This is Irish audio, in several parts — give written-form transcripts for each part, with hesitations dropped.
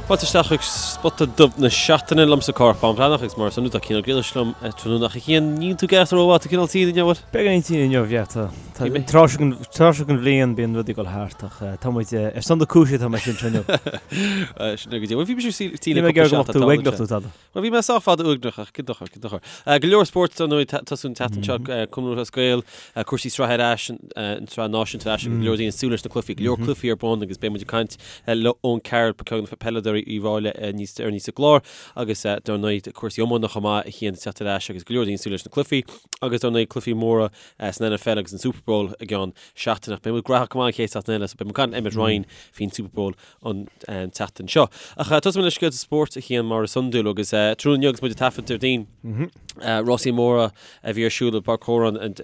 Fáilte isteach chuig Spota Dubh na Seachtaine liomsa Cárthach Bán Breathnach agus mar is iondúil tá Cian Ó Griallais liom tráthnóna ach a Chian, níl tú ag éireacht rómhaith, tá cineál tinn inniu, bhfuil? Beagáinín tinn inniu, yeah, tá. Tá an tráth seo den tráth seo den bhliain bíonn rudaí ag dul thart ach tá muid ar son na cúise tá mé sin seo inniu. Sin é go dtí. Bhuel bhí mise tinn le cúpla seachtain tá uaigneach tú tada. Bhuel, bhí mé sách fada uaigneach ach cén dochar, cén dochar. Go leor spóirt ar ndóigh tosú an tseachtain seo, Cumann Lúthchleas Gael, cúrsaí sraithe ar ais, an tsraith náisiúnta ar ais agus go leor daoine ag súil leis na cluichí, go leor cluichí ar bun agus beidh muid ag caint le Eoin Carroll, ceann de na peileadóirí Uíbh Fhailí níos deireanaí sa gclár agus dar ndóigh cúrsaí iomána chomh maith a Chian ag teacht ar ais agus go leor daoine ag súil leis na cluichí agus dar ndóigh cluichí móra san NFL agus an Super Bowl i gceann seachtaine. Beidh muid graitheach go maith an chéad seachtain eile so beidh muid ag caint le Emmet Ryan faoin Super Bowl an tseachtain seo. Ach tosóidh muid le scéalta spóirt a Chian mar is iondúil agus tráthnóna inniu agus muid ag taifead Déardaoin, rásaí móra a bhí ar siúl i bPáirc Odhráin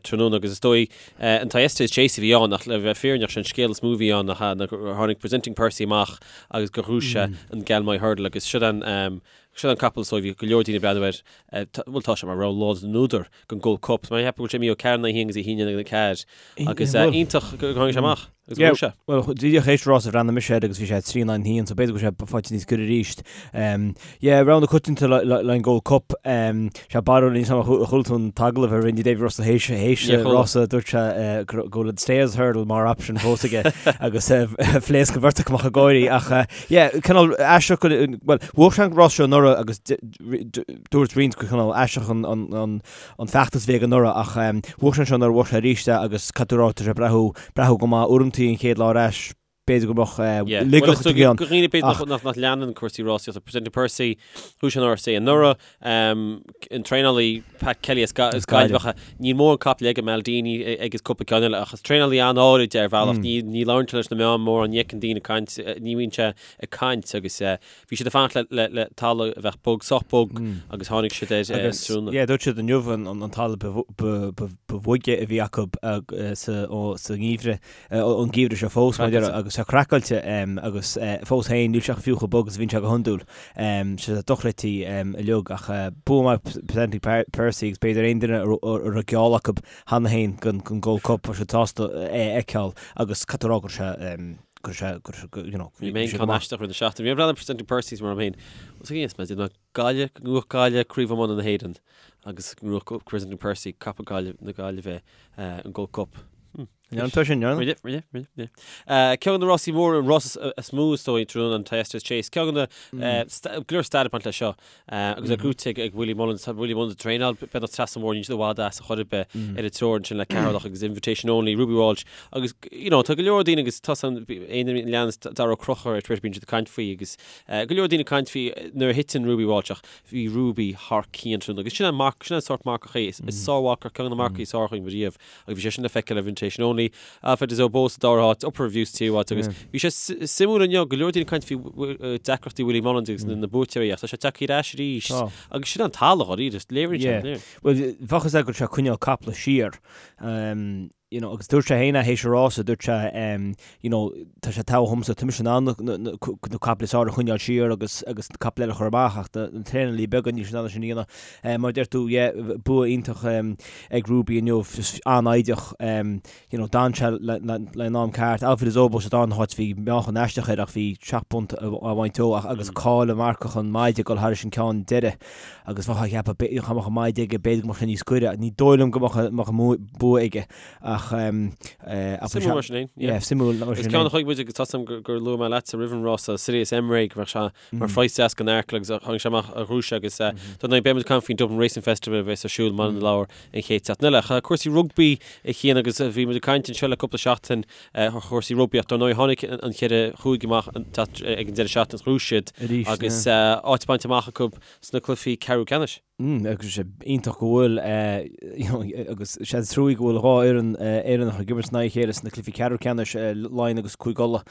tráthnóna agus is dóigh an Thyestes Chase a bhí ann ach le bheith fírinneach sé an scéal is mó a bhí ann ná gur tháinig Presenting Percy amach agus gur ghnóthaigh sé an Galmoy Hurdle agus siod an siod an capall so bhí go leor daoine ag breathnú air bhuel tá sé mar rogha láidir na n-údar don Gold Cup. Mar cheap go bhfuil sé imithe ó 4 in aghaidh 1 agus 1 in aghaidh 4 agus iontach gur tháinig sé amach agus go raibh sé. Bhuel, díreach théis rás a bhreathnaigh mise air agus bhí sé 3 in aghaidh 1, so b'fhéidir go bhfuil sé faighte níos giorra arís. Yeah, rogha na coitianta le an Gold Cup. Sé barúil níos am a chuala tú an t-agallamh a rinne Davy Russell théis théis rása dúirt sé go bhfuil an Stayers Hurdle mar option fós aige agus phléasc an bheirt acu amach ag gáirí ach yeah, cineál aisteach bhuel, bhuaigh sé an rás seo anuraidh agus Dúirt roinnt gur cineál aisteach an feachtas a bhí aige anuraidh ach bhuaigh sé anseo anuraidh, bhuaigh sé arís é agus caithfidh tú a rá tá sé ag breathnú, breathnú go maith. Uaireantaí an chéad lá ar ais b'fhéidir go mbeadh ligeadh a bhí ann. Do dhaoine b'fhéidir nach leanann cúrsaí rásaíochta, Presenting Percy, bhuaigh sé an RSA anuraidh, an traenálaí Pat Kelly as Gaillimh, níl mórán capall aige, Maldini agus cúpla ceann eile ach is traenálaí an-áirid é ar bhealach, ní labhrann sé leis na meáin mórán, ní fheiceann daoine ag caint, ní bhíonn sé ag caint agus Bhí siad ag fanacht le le talamh a bheadh bog, sách bog agus tháinig siad air ar an tráthnóna. Yeah, dúirt siad inniu an talamh ba bhoige a bhí acu sa ngeimhreadh, an geimhreadh seo fós, mar a agus tá craiceáilte agus fós féin níl sé fiú chomh bog is a bhíonn sé go hiondúil. Sé dochreidte uilig ach bua maith Presenting Percy agus b'fhéidir aon duine a raibh geall acu cheana féin don Gold Cup, bheadh siad sásta é a fheiceáil agus caithfidh tú a rá go raibh sé go raibh sé, go raibh sé, you know, Bhí mé ceann aisteach roimh na seachtaine. Bhí mé ag breathnú ar Presenting Percy mar féin. Is ag mé déanamh Gaillimh, go ngnóthódh Gaillimh Craobh Iomána na hÉireann agus go ngnóthódh Presenting Percy capall Gaillimh na Gaillimhe an Gold Cup. An tá sin, Rinne, rinne, rinne, rinne. Ceann de na rásaí móra, an rás is mó is dóigh tráthnóna an Thyestes Chase. Ceann de na go leor stair ag baint leis seo. Agus é gnóthaithe ag Willie Mullins. Tá Willie Mullins ag traenáil beagnach trasna an bhóthair, níl siad i bhfad as a chor ar bith ar an treoir ansin le Ceatharlach agus Invitation Only, Ruby Walsh agus you know tá go leor daoine agus tá san aon duine a leanas Darragh Ó Conchúir ar Twitter bíonn siad ag caint faoi agus go leor daoine ag caint faoi nuair a thiteann Ruby Walsh ach bhí Ruby thar cionn tráthnóna agus sin an marc sin an sórt marcach é is sármharcach ceann de na marcaigh is fearr againn riamh. Agus bhí sé sin le feiceáil ar Invitation Only, Alpha Des Obeaux sa dara háit, Upper View sa tríú háit agus bhí sé suimiúil inniu, go leor daoine ag caint faoi deacrachtaí Willie Mullins agus na buaiteoirí ach tá sé tagtha ar ais arís agus sin an talamh dháiríre, léiríonn sé, léiríonn. Bhuel, bheadh a fhios agat go raibh sé ag coinneáil caiple siar, you know, agus dúirt sé féin é théis an rása, dúirt sé, you know, tá sé togha dhomsa, tá mise in ann na caiple is fearr a choinneáil siar agus agus na caiple eile a chur amach ach na traenálaí beaga níl siad in ann sin a dhéanamh. Mar a deir tú, yeah, bua iontach ag Ruby inniu, just an-fhoighdeach, you know, d'fhan sé le an am ceart. Alpha Des Obeaux sa darna háit bhí meáchan aisteach air ach bhí 7 bpunt á bhaint dó ach agus cáil an mharcach an maide ag dul thairis an ceann deiridh agus bheifeá ag ceapadh dá mbeadh an maide aige b'fhéidir go mbeadh sé níos gaire. Ní dóigh liom go mbeadh an bua aige. Ach Suimiúil mar sin féin. Yeah, suimiúil mar sin féin. Is ceann a chonaic muid agus tá a fhios agam gur luaigh mé leatsa roimh an rása Sirius Emre go mbeadh sé mar phraghas deas don Arkle agus tháinig sé amach a ghnóthaigh sé agus dar ndóigh beidh muid ag caint faoin Dublin Racing Festival a bheas ar siúl i mBaile na Lobhar an chéad seachtain eile. Ach cúrsaí rugbaí a Chian agus bhí muid ag caint anseo le cúpla seachtain ar chúrsaí rugbaí ach dar ndóigh tháinig an cheithre chúige amach ag an deireadh seachtaine ghnóthaigh siad agus áit bainte amach acu sna cluichí ceathrú ceannais. Agus sé iontach go bhfuil agus sé trua go bhfuil dhá fhoireann Éireannach ag imirt in aghaidh a chéile sna cluichí ceathrú ceannais, Laighin agus Cúige Uladh.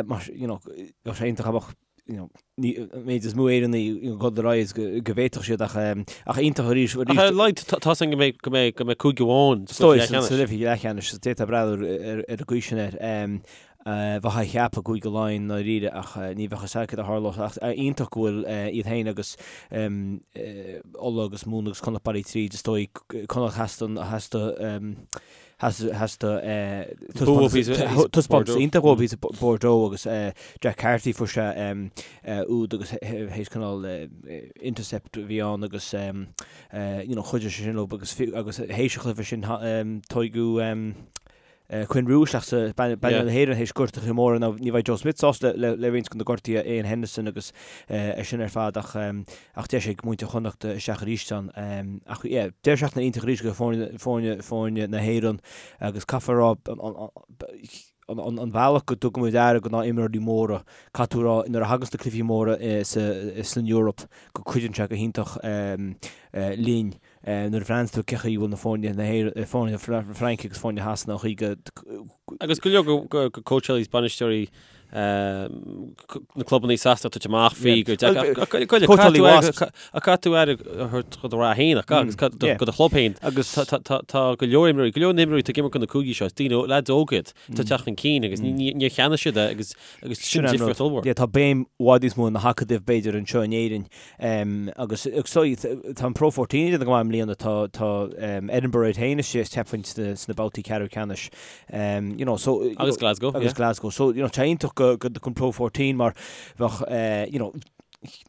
Mar you know bheadh sé iontach dá mbeadh you know an méid is mó Éireannaigh ag dul ar aghaidh is go bhféadfadh siad ach ach iontach arís arís. Ach ar Laighin tá a fhios againn go mbeidh go mbeidh go mbeidh cúige amháin sa cluiche leathcheannais. Sa d'fhéadfá breathnú ar an gcaoi sin air. Bheifeá ag ceapadh Cúige Laighean i ndáiríre ach ní bheadh fhios agat céard a tharlódh ach iontach go bhfuil iad féin agus Uladh agus Mumhan agus Connacht bailithe tríd is dóigh Connacht theas don theas do theas do taispeántas iontach uathu thíos i Bordeaux agus Jack Carty fuair sé úd agus théis cineál intercept a bhí ann agus you know chuidigh sé sin leo agus agus théis an chluiche sin toghadh Quinn Roux isteach sa bpainéal na hÉireann théis gortuithe móra. Now ní bheidh Joe Schmidt sásta le le roinnt de na gortuithe Ian Henderson agus é sin ar fad ach ach deis ag muintir Chonnacht isteach arís ann. Ach yeah, deireadh seachtaine iontach arís do foirne foirne foirne na hÉireann agus caithfear a rá an an an bealach go dtugaimid aire do na imreoirí móra, caithfidh tú a rá nuair a thaganns na cluichí móra sa san Eoraip go cuidíonn sé go hiontach linn. Nuair a bhreathnaíonn tú cé chaoi a bhfuil na foirne na hÉireann, foirne na Fraince agus foirne Shasana, an chaoi go. Agus go leor de cóitseálaí is bainisteoirí na clubanna i Sasana ag tabhairt amach faoi gur deacair. Ach caithfidh tú aire a thabhairt do do rath féin ach agus do do chlub féin. Agus tá go leor imreoirí, go leor na himreoirí atá ag imirt do na cúigí seo, is daoine, leaids óga iad, atá ag teacht chun cinn agus níor cheannaigh siad é agus sin difríocht ollmhór. Tá béim i bhfad níos mó ar na hacadaimh b'fhéidir anseo in Éirinn Agus tá an Pro 14 ag déanamh go maith i mbliana, tá tá Edinburgh iad féin istigh cheapfainn sna sna babhtaí ceathrú ceannais. You know, so Agus Glasgow, Agus Glasgow. So, you know, tá iontach go go an Pro 14 mar bheadh you know,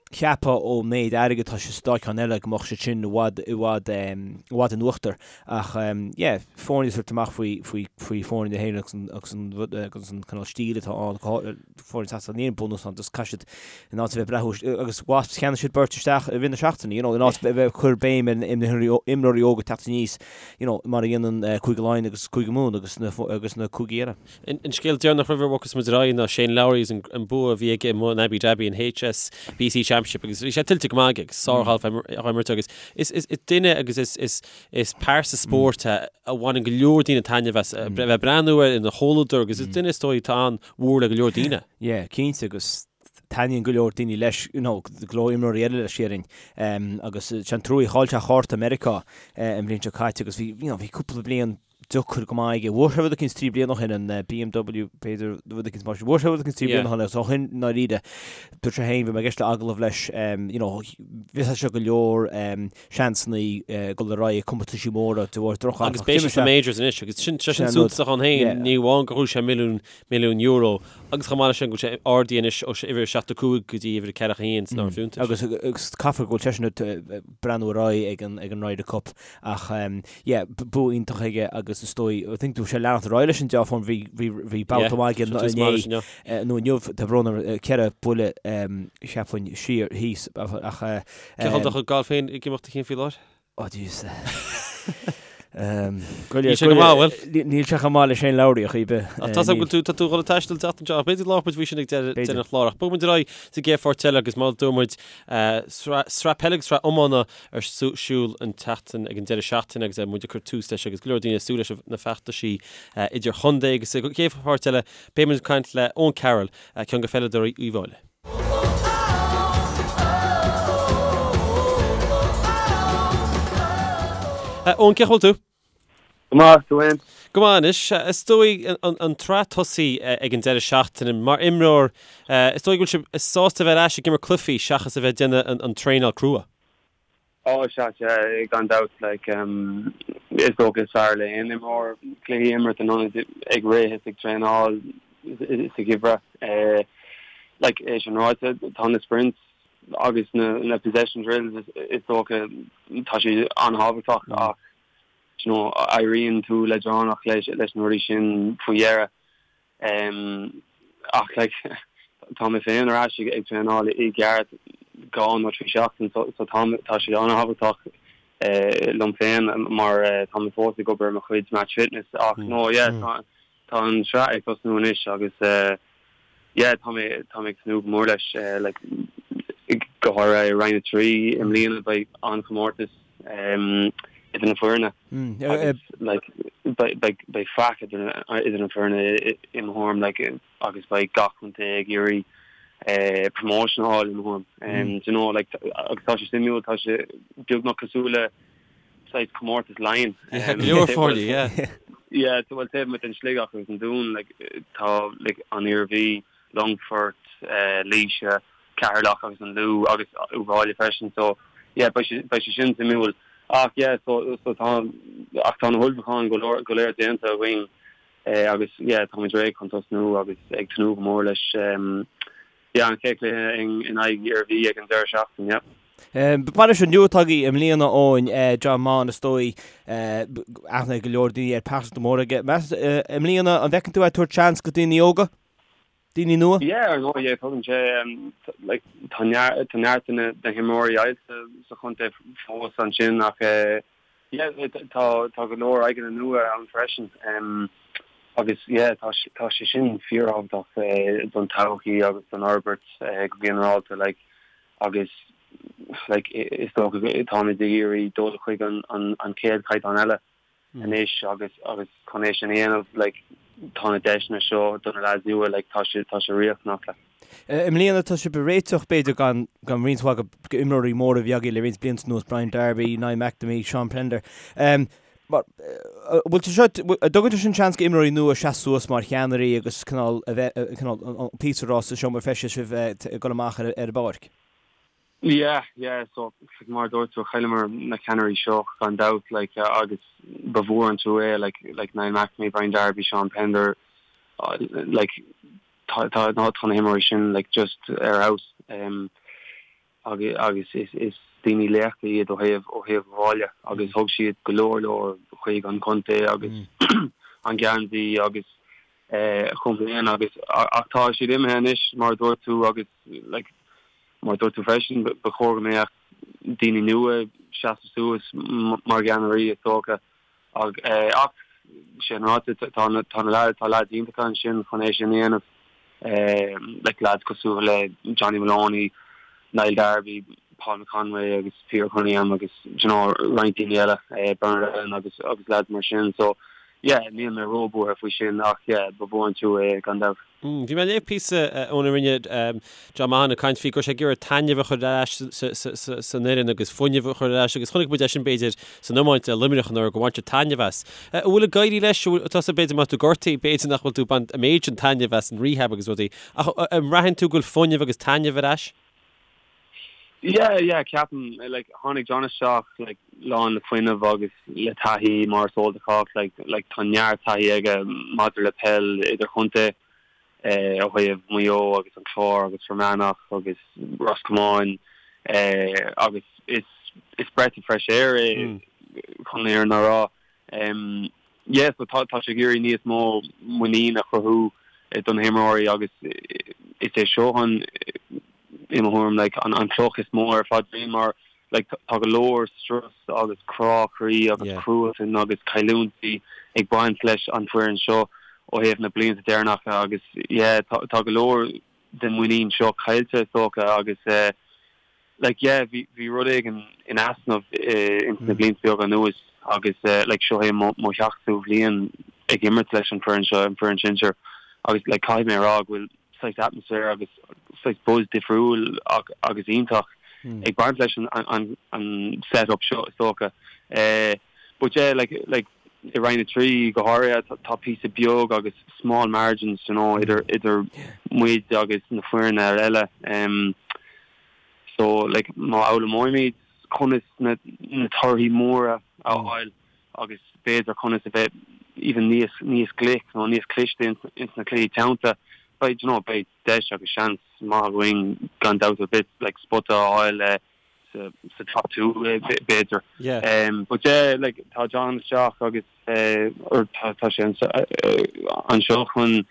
cheapfá ón méid airgid atá sa dá cheann eile go mbeadh siad sin i bhfad i bhfad i bhfad in uachtar. Ach yeah, foirne ag tabhairt amach faoi faoi faoi foirne na hÉireann agus an agus an rud agus an cineál stíl atá ann foireann Shasana níl aon bunús ann just caithfidh siad in áit a bheith breathnú agus Wasps cheannaigh siad beirt isteach i rith na seachtaine you know in áit a bheith ag cur béim ar imreoirí óga teacht aníos you know mar a dhéanann Cúige Laighean agus Cúige Mumhan agus na agus na cúigí eile. An scéal deireanach roimh a bhogfas muid ar aghaidh ná Shane Lowry agus an bua a bhí aige amuigh in Abu Dhabi an HSBC Championship agus bhí sé tuillte go maith aige agus sárghalf á imirt agus is is duine agus is is is pearsa spóirt é a bhaineann go leor daoine taitneamh as a bheith ag breathnú air ina chomhluadar agus is duine is dóigh atá an-mhór le go leor daoine. Yeah, cinnte agus taitníonn go leor daoine leis, you know, go leor imreoirí eile leis déarfainn. Agus sé an trua chaill sé cárta Meiriceá an bhliain seo caite agus bhí, you know, bhí cúpla bliain deacair go maith aige. Bhuaigh sé rud eicínt 3 bliana ó shin, an BMW, b'fhéidir, rud eicínt mar sin. Bhuaigh sé rud eicínt 3 bliana ó shin agus ó shin i ndáiríre, dúirt sé féin, bhí mé ag éisteacht le agallamh leis, you know, bhí sé go leor seansanna dul ar aghaidh i comórtaisí móra de bharr droch Agus beidh sé sna majors anois agus sin sé sin suntasach ann féin, ní amháin gur bhuaigh sé milliún, milliún euro agus chomh maith leis sin go bhfuil sé ardaithe anois ó uimhir 75 go dtí uimhir 41 san áireamh fiúntais. Agus agus caithfear go bhfuil seisean ag breathnú ar aghaidh ag an ag an Ryder Cup ach yeah, bua iontach aige agus is dóigh, I think bhí sé leanacht ar aghaidh leis an dea-fhorm, bhí bhí bhí babhta maith aige inné nó inniu, tá brón orm, ceithre buille cheapfainn siar thíos ach Cén chaoi a bhfuil do chuid gailf féin ag imeacht a Chian faoi láthair? Oh jeez. Níl sé go maith, bhfuil? Níl sé chomh maith le Shane Lowry ar chaoi ar bith. Ach tá a fhios agam go bhfuil tú, tá tú ag dul ag taisteal an tseachtain seo, ach b'fhéidir go labhróidh muid faoi sin ag deireadh an chláir. Ach bogfaidh muid ar aghaidh sa gcéad pháirt eile agus mar a dúirt muid, sraith peile agus sraith iomána ar siúl an tseachtain ag an deireadh seachtaine agus muid ag cur tús leis agus go leor daoine ag súil leis na feachtaisí idir-chontae agus sa gcéad pháirt eile beidh muid ag caint le Eoin Carroll, ceann de pheileadóirí Uíbh Fhailí. Eoin, cén chaoi a bhfuil tú? Go maith, tú fhéin? Go maith anois. Is dóigh an tsraith tosaithe ag an deireadh seachtaine. Mar imreoir, is dóigh go bhfuil sibh sásta a bheith ar ais ag imirt cluichí seachas a bheith ag déanamh an traenáil crua. Ó, sea, sea, gan dabht, like, is dócha is fearr le aon imreoir cluichí a imirt in ionad ag rith is ag traenáil sa gheimhreadh. Like, é sin ráite, tá na sprints agus na, na possession drills is dócha, tá siad an-thábhachtach ach, you know, éiríonn tú leadránach leis, leis na rudaí sin faoi dheireadh. Ach like tá mé féin ar ais ag traenáil i gceart dhá nó trí seachtain so so tá tá sé an-thábhachtach liom féin mar tá mé fós ag obair ar mo chuid match fitness ach no yeah tá tá an sraith ag tosnú anois agus yeah tá mé tá mé ag tnúth go mór leis like go háirithe i Roinn 3 i mbliana beidh an-chomórtas idir na foirne agus like beidh beidh faic idir idir na foirne i mo thuairim like agus beidh gach contae ag iarraidh promotion a fháil i mo thuairim. Do you know like agus tá sé suimiúil tá sé beagnach cosúil le saghas comórtas Laighean. Go leor foirne, yeah. Yeah, so bhuel taobh amuigh den Sligeach agus an Dún like tá like an Iarmhí, Longfort, Laoise, Ceatharlach agus an Lú agus Uíbh Fhailí freisin so yeah beidh sé beidh sé sin suimiúil. Ach yeah so so tá ach tá na hullmhúcháin go leor go léir déanta againn agus yeah táimid réidh chun tosnú agus ag tnúth go mór leis yeah an chéad chluiche in aghaidh Iarmhí ag an deireadh seachtaine yeah. Bainisteoir nua atá agaibh i mbliana Eoin, John Maughan is dóigh, aithne ag go leor daoine air, pearsanta mór aige. Meas i mbliana an bhfeiceann tú é ag tabhairt seans go daoine óga? Daoine nua? Yeah, ar ndóigh, yeah, tugann sé, like, tá neart, tá neart de na, na himreoirí oilte sa chontae fós ansin ach yeah, tá, tá go leor aghaidheanna nua ann freisin. Agus yeah, tá, tá sé sin fíorthábhachtach don todhchaí agus don fhorbairt go ginearálta, like, agus like is dócha táimid ag iarraidh dul chuig an, an, an chéad chaighdeán eile. anois agus agus chun é sin a dhéanamh like tá na deiseanna seo do na lads nua like tá sé tá sé riachtanach like. I mbliana tá sibh ag réiteach b'fhéidir gan gan roinnt mhaith de imreoirí móra a bhí agaibh le roinnt blianta anuas, Brian Darby, Niall McNamee, Sean Pender. Mar bhfuil sé seo an dtugann sé sin seans go imreoirí nua seasamh suas mar cheannairí agus cineál a bheith cineál an píosa a rá sa seomra feistis roimh ag dul amach ar ar an bpáirc? Yeah, yeah, so like mar a dúirt tú, chailleamar na ceannairí seo gan dabht like agus ba mhór an trua é like like Niall McNamee, Brian Darby, Sean Pender like tá tá tá na himreoirí sin like just ar fheabhas um agus agus is is daoine laochra iad ó thaobh ó thaobh an bhaile agus thug siad go leor leor chuig an chontae agus an geansaí agus eh chomh maith agus ach tá siad imithe anois mar a dúirt tú agus like Mar a dúirt tú freisin, ba chóir go mbeadh daoine nua ag seasamh suas mar gceannairí, is dócha. Ach sin ráite, tá na tá leaids iontacha ansin chun é sin a dhéanamh, like leaids cosúil le Johnny Moloney, Niall Darby, Paul McConway agus Peter Cunningham agus do you know roinnt daoine eile, Bernard Allen agus agus leaids mar sin. So yeah, níl mé róbhuartha faoi sin ach yeah, ba mhór an trua é gan dabht. Bhí mé ag léamh píosa óna rinne John Maughan ag caint faoi go raibh sé ag iarraidh taitneamh a chur ar ais san fhoireann agus fuinneamh a chur ar ais agus chonaic muid é sin b'fhéidir san iomáint le Luimneach anuraidh gur bhain siad taitneamh as. An bhfuil ag éirí leis? Tusa b'fhéidir má tá tú gortaithe b'fhéidir nach bhfuil tú ag baint an méid sin taitneamh as an rehab agus rudaí ach an mbraitheann tú go bhfuil fuinneamh agus taitneamh ar ais? Yeah, yeah, ceapaim, like, tháinig John isteach, like, lán le fuinneamh agus le taithí mar is eol do chách, like, like, tá neart taithí aige maidir le peil idirchontae, eh, ó thaobh Maigh Eo agus an Clár agus Fear Manach agus Ros Comáin, eh, agus is, is breath of fresh air é chun an fhírinne a rá. Em, yeah, so tá, tá sé ag iarraidh níos mó muinín a chruthú do na himreoirí agus is é seo an, i mo thuairim, like, an, an cloch is mó ar a phaidrín mar, like, tá go leor strus agus crá croí agus yeah. cruatan agus cailliúintí ag baint leis an foireann seo ó thaobh na blianta deireanacha agus yeah, tá, tá go leor den muinín seo caillte is dócha agus eh, like yeah bhí bhí rud éigin in easnamh ins na blianta beaga anuas agus like seo é mo mo sheachtú bhliain ag imirt leis an foireann seo, an foireann sinsir agus like caithfidh mé a rá go bhfuil saghas atmaisféar agus saghas buzz difriúil agus iontach ag baint leis an an an set up seo is dócha. But yeah like like i Roinn 3 go háirithe tá píosa beag agus small margins you know idir idir muid agus na foirne eile. So like má fhoghlaimeoimid conas na na torthaí móra a fháil agus b'fhéidir conas a bheith even níos níos glic nó níos cliste ins ins na cluichí teannta beidh you know beidh deis agus seans maith againn gan dabht ar bith like spota a fháil sa sa top 2 b'fhéidir. Yeah. But yeah like tá John isteach agus or tá tá sé anseo chun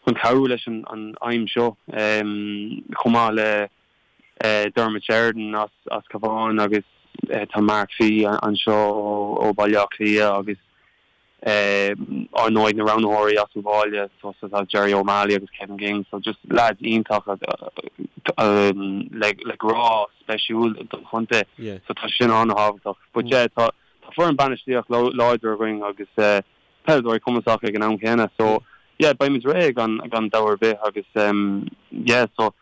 chun cabhrú leis an an aidhm seo chomh maith le Dermot Sheridan as as Cabhán agus tá Mark Fee anseo ó ó Baile Átha Cliath agus Ar ndóigh na roghnaitheoirí as an bhaile so tá Jerry O'Malley agus Kevin Ging so just lads iontacha le le grá speisiúil don chontae so tá sin an-thábhachtach. But yeah tá tá foireann bainistíocht láidir againn agus peileadóirí cumasacha ag an am chéanna so yeah beimid réidh gan gan dabht ar bith agus yeah so.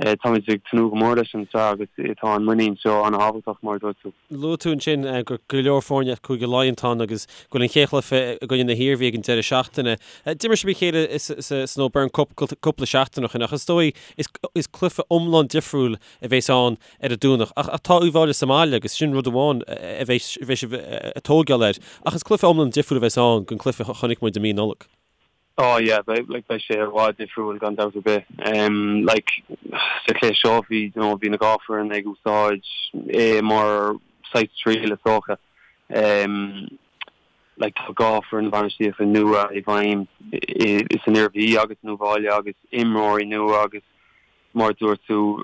Táimid ag tnúth go mór leis an tsraith agus tá an muinín seo an-thábhachtach, mar a dúirt tú. Luaigh tú ansin gur go leor foirne as Cúige Laighean atá ann agus go bhfuil an chéad chluiche i gcoinne na hIarmhí ag an deireadh seachtaine. D'imir sibh a chéile san O'Byrne Cup cúpla seachtain ó shin ach is dóigh is cluiche iomlán difriúil a bheas ann ar an Domhnach. Ach tá Uíbh Fhailí sa mbaile agus sin rud amháin a bheidh sibh ag tógáil air. Ach is cluiche iomlán difriúil a bheas ann don chluiche a chonaic muid i mí Nollag. Oh yeah, beidh, like, beidh sé i bhfad difriúil gan dabht ar bith. Em, like, sa chluiche seo bhí, you know, bhí na dhá foireann ag úsáid é mar saghas triail is dócha. Em, like, tá dhá foireann bhainistíochta nua i bhfeidhm i, i, san Iarmhí agus in Uíbh Fhailí agus imreoirí nua agus mar a dúirt tú,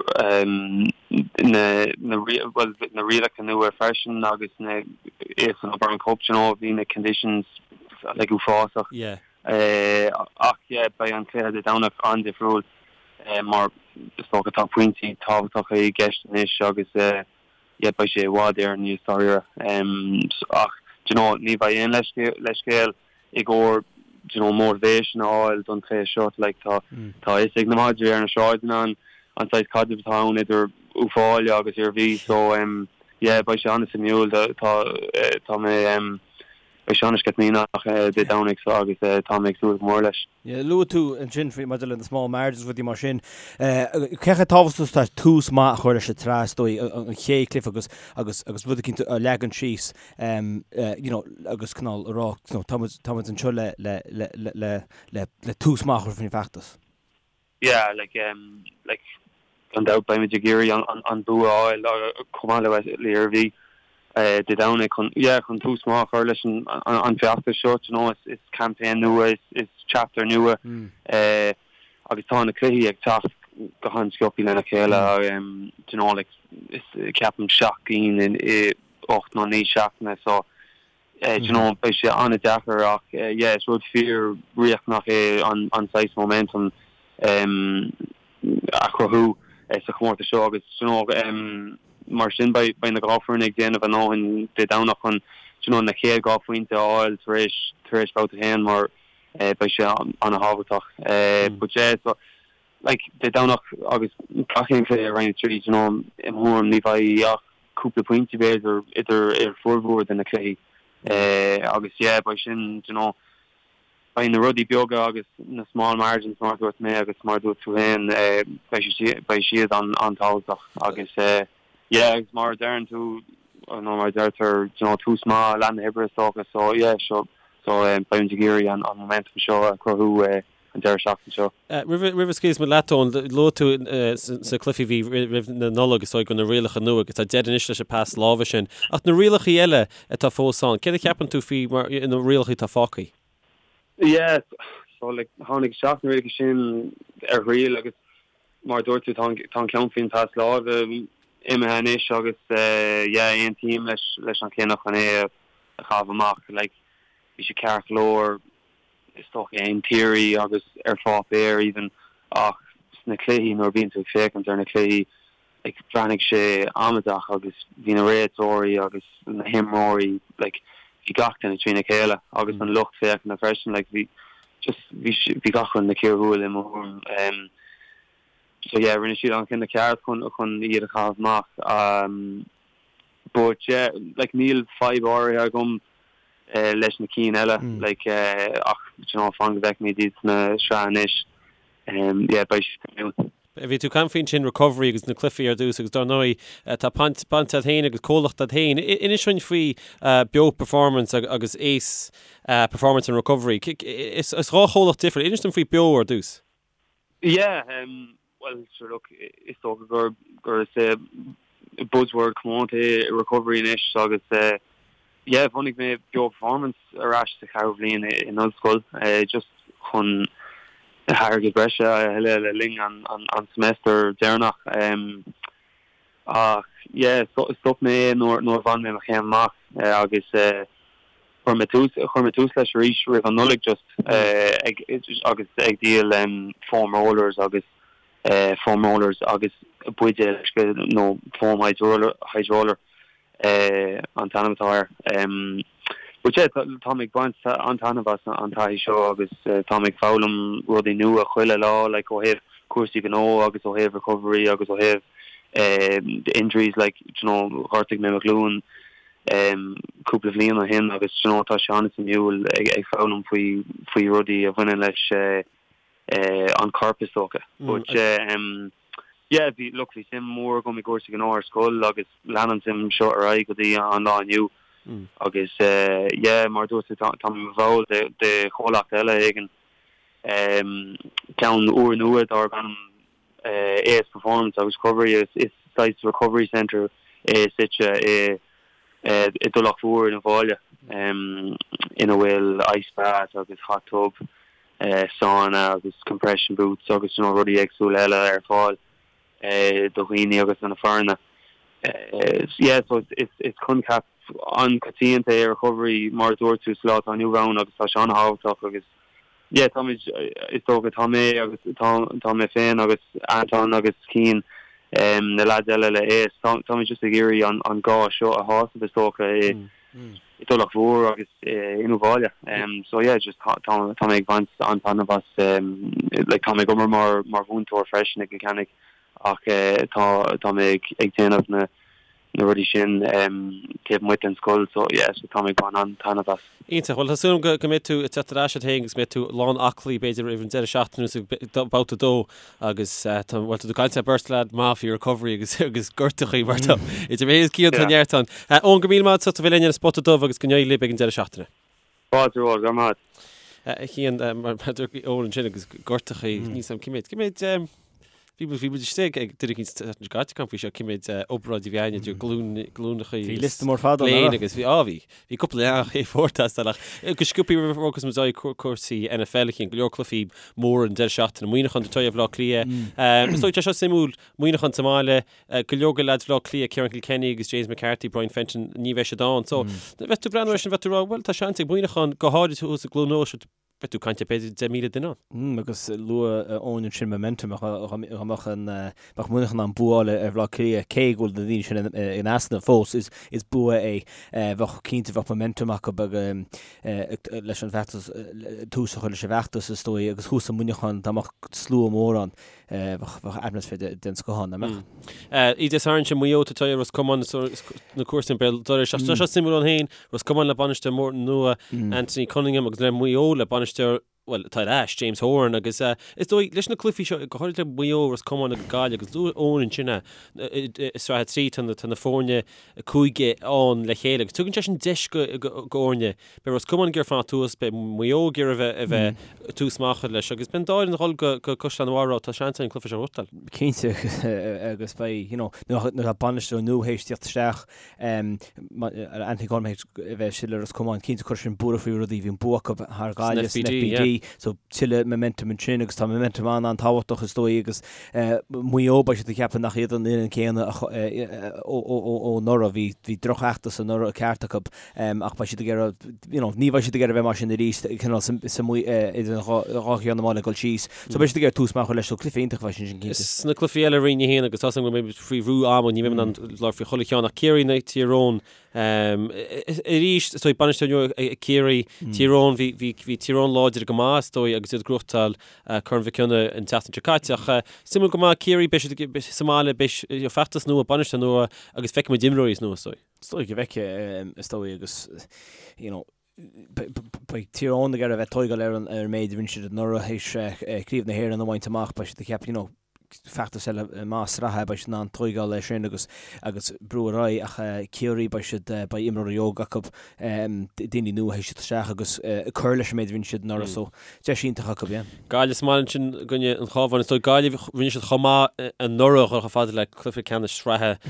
na, na, bhuel, na rialacha nua freisin agus na, san O'Byrne Cup, you know, bhí na conditions like uafásach. Yeah. Ach yeah, beidh an cluiche Dé Domhnach an-difriúil mar is dócha tá pointí tábhachtacha i gceist anois agus yeah, beidh sé i bhfad Éireann níos dáiríre. Ach, do you know, ní bheidh aon leithscéal i gcomhair, do you know, motivation a fháil don chluiche seo. Like, tá tá a fhios ag na madraí ar na sráideanna an an saghas caidrimh atá ann idir Uíbh Fhailí agus Iarmhí. So, yeah, beidh sé an-suimiúil. Tá tá mé beidh sé an-sceitimíneach Dé Domhnaigh so agus tá mé ag súil go mór leis. Yeah, luaigh tú ansin faoi maidir le na small margins rudaí mar sin. Cé chomh tábhachtach is atá tús maith a chur leis an tsraith is dóigh an chéad chluiche agus agus agus rud eicínt a leagan síos you know agus cineál a rá you know táimid táimid anseo le le le le le le tús maith a chur faoin bhfeachtas. Yeah, like, um, like, gan dabht beimid ag iarraidh an, an, an bua a fháil chomh maith le le Iarmhí Dé Domhnaigh chun, yeah, chun tús maith a chur leis an, an, an feachtas seo, you know, is, is campaign nua, is, is chapter nua, eh, agus tá na cluichí ag teacht go han-sciobtha lena chéile, um, you know, like, is, ceapaim seacht gcinn in, i 8 nó 9 seachtaine, so, Do you know, beidh sé an-deacair ach yeah, is rud fíor-riachtanach é an saghas momentum a chruthú sa chomórtas seo agus do you know, mar sin beidh na dhá foireann ag déanamh a ndóthain Dé Domhnach chun do you know, na chéad dhá phointe a fháil tar éis tar éis babhta a haon mar beidh sé an-thábhachtach. But yeah, so like Dé Domhnach agus gach aon chluiche i Roinn 3, do you know, i mo thuairim ní bheidh ach cúpla pointe b'fhéidir idir ar formhór de na cluichí agus yeah beidh sin do you know beidh na rudaí beaga agus na small margins mar a dúirt mé agus mar a dúirt tú féin beidh siad beidh siad an an-tábhachtach agus yeah agus mar a deireann tú nó mar a deirtear do you know tús maith leath na hoibre is dócha so yeah so so beimid ag iarraidh an an momentum seo a chruthú an deireadh seachtaine seo. Roimh a scaoilfeas muid leat, Eoin, luaigh tú sna cluichí a bhí roimh na Nollag is dóigh go na rialacha nua agus tá deireadh anois leis an pas láimhe sin. Ach na rialacha eile atá fós ann, céard a cheapann tú faoi mar na rialacha atá fágtha? Yeah, so like tháinig isteach na rialacha sin ar thriail agus mar a dúirt tú tá an ceann faoin pas láimhe imithe anois agus yeah aontaím leis leis an chinneadh chun é a chaitheamh amach. Like bhí sé ceart go leor is dócha in theory agus ar pháipéar even ach sna cluichí nuair a bhíonn tú ag féachaint ar na cluichí like bhreathnaigh sé amaideach agus bhí na réiteoirí agus na himreoirí like bhí gach duine trína chéile agus an lucht féachana freisin like bhí just bhí bhí gach rud ina chíor thuathail i mo thuairim um so yeah rinne siad an cinneadh ceart chun chun iad a chaitheamh amach um But yeah, like níl fadhb áirithe agam leis na cinn eile, like ach do you know fan go bhfeicfimid iad sna sraith anois, yeah beidh sé suimiúil. Bhí tú ag caint faoin sin recovery agus na cluichí ar dtús agus dar ndóigh tá baint baint agat féin agus comhlacht agat féin. Inis dúinn faoi Beo Performance agus Ace Performance and Recovery. Is dhá chomhlacht difriúil. Inis dom faoi Beo ar dtús. Yeah, bhuel, sure look, is dócha gur gur is é buzzword comónta é recovery anois agus yeah, bhunaigh mé Beo Performance ar ais sa cheathrú bhliain in ollscoil just chun airgead breise a thuilleadh le linn an an semester deireanach. Ach yeah, stop mé é nuair nuair a bhain mé mo chéim amach agus chuir mé tús chuir mé tús leis arís roimh an Nollaig just ag agus ag díol foam rollers agus foam rollers agus buidéal uisce nó foam hydroller hydroller an t-ainm atá air. But yeah, tá mé ag baint an-taitneamh as an taithí seo agus tá mé ag foghlaim rudaí nua chuile lá like ó thaobh. cúrsaí gnó agus ó thaobh recovery agus ó thaobh injuries like do you know ghortaigh mé mo ghlúin cúpla bhliain ó shin agus do you know tá sé an-suimiúil ag foghlaim faoi faoi rudaí a bhaineann leis an corp is dócha. But yeah bhí look bhí suim mhór agam i gcúrsaí gnó ar scoil agus lean an suim seo ar aghaidh go dtí an lá inniu agus yeah mar a dúirt tú tá mé i mo bhall de de chomhlacht eile éigin ceann úrnua darb ainm AS Performance agus Recovery. Is saghas recovery centre é suite i dTulach Mhór in Uíbh Fhailí ina bhfuil ice bath agus hot tub, sauna agus compression boots agus you know rudaí éagsúla eile ar fáil do dhaoine agus do na foirne. Yeah so is coincheap an-choitianta é recovery mar a dúirt tú sa lá atá inniu ann agus tá sé an-thábhachtach agus yeah táimid is dócha tá mé agus tá tá mé féin agus Anton agus Cian na lads eile le AS tá táimid just ag iarraidh an an gá seo a shásamh is dócha i i dTulach Mhór agus in Uíbh Fhailí. So yeah just tá tá tá mé ag baint an-taitneamh as like tá mé ag obair mar mar mhúinteoir freisin ag Cill Chainnigh ach tá tá mé ag ag déanamh na na rudaí sin taobh amuigh den scoil so yeah so tá mé ag baint an-taitneamh as. Iontach. Bhuel tá súil agam go mbeidh tú ag teacht ar ais ort féin agus go mbeidh tú lán aclaí b'fhéidir roimh an deireadh seachtaine nó babhta a dó agus tá bhuel tá tú ag caint le beirt leaid maith faoi recovery agus agus gortachaí mar tá idir mé agus Cian tá neart ann. Eoin go raibh míle maith agat as ucht a bheith linn ar an Spota Dubh agus go n-éirí libh ag an deireadh seachtaine. Fáilte romhat, go raibh maith agat. A Chian, mar a dúirt Eoin ansin agus gortachaí, níl 's agam cé mhéad, cé mhéad bhí muid, bhí muid istigh ag duine éicint an tseachtain seo caite ag caint faoi seo, cé mhéad obráid a bhí againn idir glúin, glúineacha Bhí liosta mór fada ann, léin agus bhí, á bhí, bhí cúpla leathanach A4 teastáil ach go sciobtha roimh a bhogfas muid ar aghaidh cúrsaí NFL a Chian, go leor cluichí móra an deireadh seachtaine, Muineachán ag tabhairt aghaidh ar Bhaile Átha Cliath. Is dóigh tá seo suimiúil, Muineachán sa mbaile, Go leor de leaids Bhaile Átha Cliath, Ciarán Kilkenny agus James McCarthy, Brian Fenton, ní bheidh siad ann. So, bheadh tú ag breathnú air sin, bheadh tú ag rá, bhuel, tá seans ag Muineachán, go háirid thuas i gCluain Eois, beidh tú ag caint ar b'fhéidir 10,000 duine ann. Mm, agus luaigh Eoin ansin momentum, dá mbeadh an, bheadh Muineachán in ann bua a fháil ar Bhaile Átha Cliath, cé go bhfuil na daoine sin in easnamh fós, is, is bua é. Bheadh, cinnte, bheadh momentum acu leis an bhfeachtas, tús a chur leis an bhfeachtas, is dóigh, agus thuas i Muineachán, dá mbeadh slua mór ann. Bheadh atmaisféar den scoth ann, nach mbeadh? Oíche Dé Sathairn sin Maigh Eo ag tabhairt aghaidh ar Ros Comáin na cúrsaí an Béal Dorais. Ach tá seo suimiúil ann féin, Ros Comáin le bainisteoir mór nua Anthony Cunningham agus le Maigh Eo le bainisteoir, bhuel, atá ar ais, James Horan agus is dóigh leis na cluichí seo, go háirid le Maigh Eo, Ros Comáin agus Gaillimh agus luaigh Eoin ansin é, i Sraith 3 tá na foirne cúige ann le chéile agus tugann sé sin deis go fhoirne Beidh Ros Comáin ag iarraidh fanacht thuas, beidh Maigh Eo ag iarraidh a bheith ag tús maith a chur leis agus beidh an dá fhoireann ag dul go Caisleán an Bharraigh tá seans an cluiche seo a ghnóthachtáil. Cinnte agus beidh, you know, nuair atá bainisteoir nua théis tíocht isteach, Anthony Cunningham théis a bheith istigh le Ros Comáin, cinnte chuir sin buaireamh faoi rudaí, bhí an bua acu thar Ghaillimh san FBD, so tuilleadh momentum ansin agus tá momentum an-an-tábhachtach is dóigh agus Maigh Eo beidh siad ag ceapadh nach iad an fhoireann céanna ó anuraidh, bhí drochfheachtas anuraidh ceart acu. Ach beidh siad ag iarraidh, you know, ní bheidh siad ag iarraidh a bheith mar sin arís, cineál sa, sa, idir an dhá cheann na mála ag dul síos. So beidh siad ag iarraidh tús maith a chur leis, so cluiche iontach a bheidh ansin cinnte. Sna cluichí eile Roinn 1 agus tá 's agam go mbeidh muid faoi bhrú ama, ní bheidh mé in ann labhairt faoi chuile cheann ach Ciarraí in aghaidh Tír Eoghain arís, is dóigh bainisteoir nua ag Ciarraí, Tír Eoghain, bhí, bhí, bhí Tír Eoghain láidir go maith is dóigh agus iad ag gnóthachtáil Corn Mhic Cionnaith an tseachtain seo caite ach suimiúil go maith Ciarraí, beidh siad sa mbaile, beidh feachtas nua, bainisteoir nua agus feicfidh muid imreoirí nua is dóigh. Is dóigh go bhfeicfidh, is dóigh, agus, you know, beidh Tír Eoghain ag iarraidh a bheith ag tóigeáil ar an ar an méid a rinne siad anuraidh théis Craobh na hÉireann a bhaint amach, beidh siad ag ceapadh, you know, feachtas eile maith sraithe, beidh siad in ann tóigeáil air sin agus agus brú ar aghaidh ach Ciarraí beidh siad, beidh imreoirí óga acu, daoine nua théis teacht isteach agus cur leis an méid a rinne siad anuraidh so deis iontach acu, yeah. Gaillimh sa mbaile ansin i gcoinne an Chabháin. Is dóigh Gaillimh, rinne siad chomh maith anuraidh chomh fada le cluiche ceannais sraithe.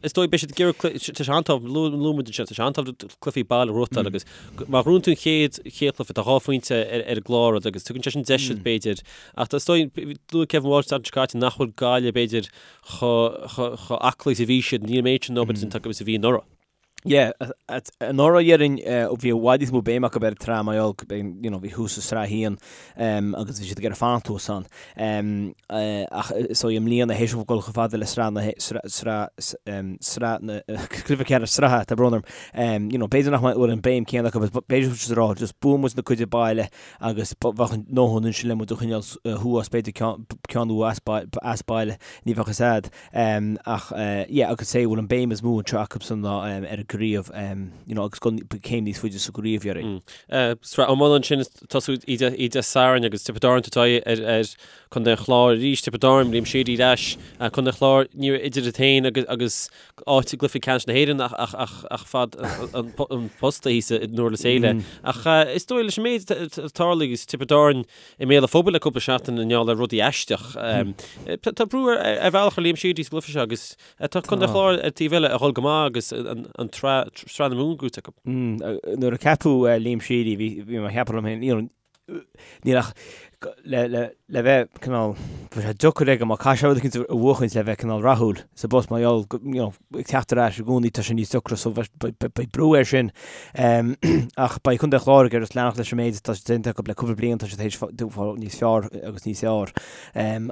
Is dóigh beidh siad ag iarraidh, tá sé an-tábhachtach, luaigh muid ansin, tá sé an-tábhachtach cluichí baile a ghnóthachtáil agus má ghnóthaíonn tú an chéad chéad chluiche, tá dhá phointe ar an gclár agus tugann sé sin deis duit b'fhéidir. Ach is dóigh, luaigh Kevin Walsh an tseachtain seo caite nach bhfuil Gaillimh b'fhéidir chomh aclaí is a bhí siad, níl an méid sin obair déanta acu is a bhí anuraidh. Yeah, anuraidh déarfainn bhí i bhfad níos mó béim acu ar an tsraith mar gheall you know, bhí thuas i sraith a haon agus bhí siad ag iarraidh fanacht thuas ann. Ach so i mbliana théis dóibh dul chomh fada le sraith na sraith sraith na cluiche ceannais sraithe, tá brón orm. You know, b'fhéidir nach bhfuil an béim céanna acu, b'fhéidir siad ag rá just buafaidh muid na cuid baile agus bheadh a ndóthain ansin le muid a choinneáil thuas, b'fhéidir ceann nó as baile, ní bheadh fhios a'd. Ach yeah agus sé bhfuil an béim is mó anseo acusan ná ar an gcraobh you know agus dul céim níos faide sa gcraobh déarfainn. Sraith iomána ansin ag tosú oíche Sathairn agus Tiobraid Árann ag tabhairt aghaidh ar ar Contae an Chláir arís, Tiobraid Árann, Liam Sheedy ar ais, Contae an Chláir ní raibh idir iad féin agus agus áit i gcluiche ceannais na hÉireann ach ach ach ach fad an an posta thíos i nDurlas Éile. Ach is dóigh leis an méid a tharla agus Tiobraid Árann i mbéal an phobail le cúpla seachtain i ngeall ar rudaí aisteach. Tá brú ar bhealach ar Liam Sheedy sa gcluiche seo agus tá Contae an Chláir ar taobh eile ag dhul go maith agus an tsraith na Mumhan gnóthaithe acu. Nuair a ceapadh Liam Sheedy bhí mé ag ceapadh liom féin, you know, níl ach le le bheith cineál, bheadh sé deacair aige má caithfidh sé rud éicint a bhuachaint le bheith cineál rathúil sa bpost mar gheall you know, ag teacht ar ais i gcónaí tá sé níos deacra so beidh brú air sin. Ach beidh Contae an Chláir ag iarraidh leanacht leis an méid atá déanta acu le cúpla bliain tá siad théis fáil níos fearr agus níos fearr.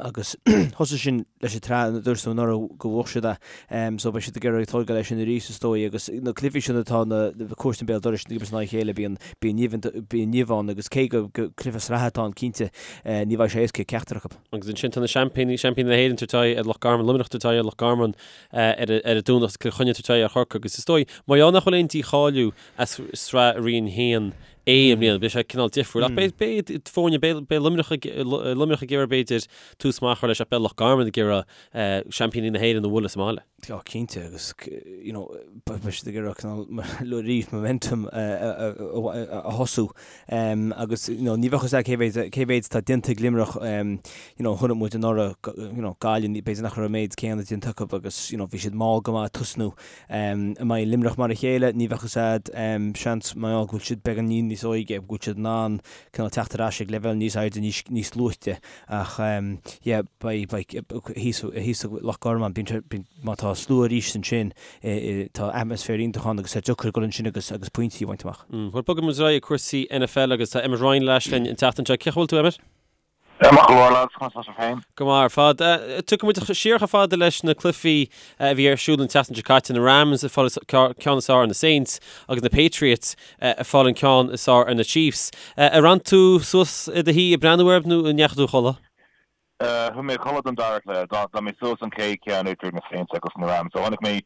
Agus thosaigh sin leis an tsraith dúirt tú anuraidh go bhuaigh siad é. So beidh siad ag iarraidh tógáil air sin arís is dóigh agus na cluichí sin atá na comharsana béal dorais ag imirt in aghaidh a chéile bíonn bíonn nimh ann agus cé go cluiche sraithe atá ann cinnte ní bheidh sé éasca ag ceachtar acu. Agus ansin tá na seaimpíní, seaimpíní na hÉireann ag tabhairt aghaidh ar Loch Garman, Luimneach ag tabhairt aghaidh ar Loch Garman ar an Domhnach agus Cill Chainnigh ag tabhairt aghaidh ar Chorcaigh agus is dóigh, mar gheall nach bhfuil aon dícháiliú as sraith Roinn 1A i mbliana, beidh sé cineál difriúil. Ach beidh beidh foirne, beidh beidh Luimneach ag Luimneach ag iarraidh b'fhéidir tús maith a chur leis ach beidh Loch Garman ag iarraidh seaimpíní na hÉireann a bhualadh sa mbaile. Tá cinnte agus you know beidh siad ag iarraidh cineál arís momentum a thosú agus you know ní bheadh fhios a'd cé mhéad cé mhéad atá déanta ag Luimneach you know chonaic muid anuraidh you know Gaillimh b'fhéidir nach raibh an méid céanna déanta acu agus you know bhí siad mall go maith ag tosnú. An mbeidh Luimneach mar a chéile? Ní bheadh fhios a'd. Seans mar gheall go bhfuil siad beagáinín níos óige go bhfuil siad in ann cineál teacht ar ais ag leibhéal níos airde níos níos luaite ach yeah beidh beidh thíos thíos i Loch Garman bíonn sé bíonn má tá slua arís ansin tá atmaisféar iontach ann agus tá deacair dul ansin agus agus pointí a bhaint amach. Bhuel bogfaidh muid ar aghaidh ag cúrsaí NFL agus tá Emmet Ryan ar ais linn an tseachtain seo. Cén chaoi a bhfuil tú Emmet? Maith go leor lads, conas tá sibh féin? Go maith ar fad. Tiocfaidh muid siar chomh fada leis na cluichí a bhí ar siúl an tseachtain seo caite, na Rams ag fáil an ceann is fearr ar na Saints agus na Patriots ag fáil an ceann is fearr ar na Chiefs. Ar fhan tú suas i do shuí ag breathnú air nó an ndeachaigh tú a chodladh? Chuaigh mé a chodladh don dara cluiche. D'fhan mé suas an chéad cheann idir na Saints agus na Rams. So chonaic mé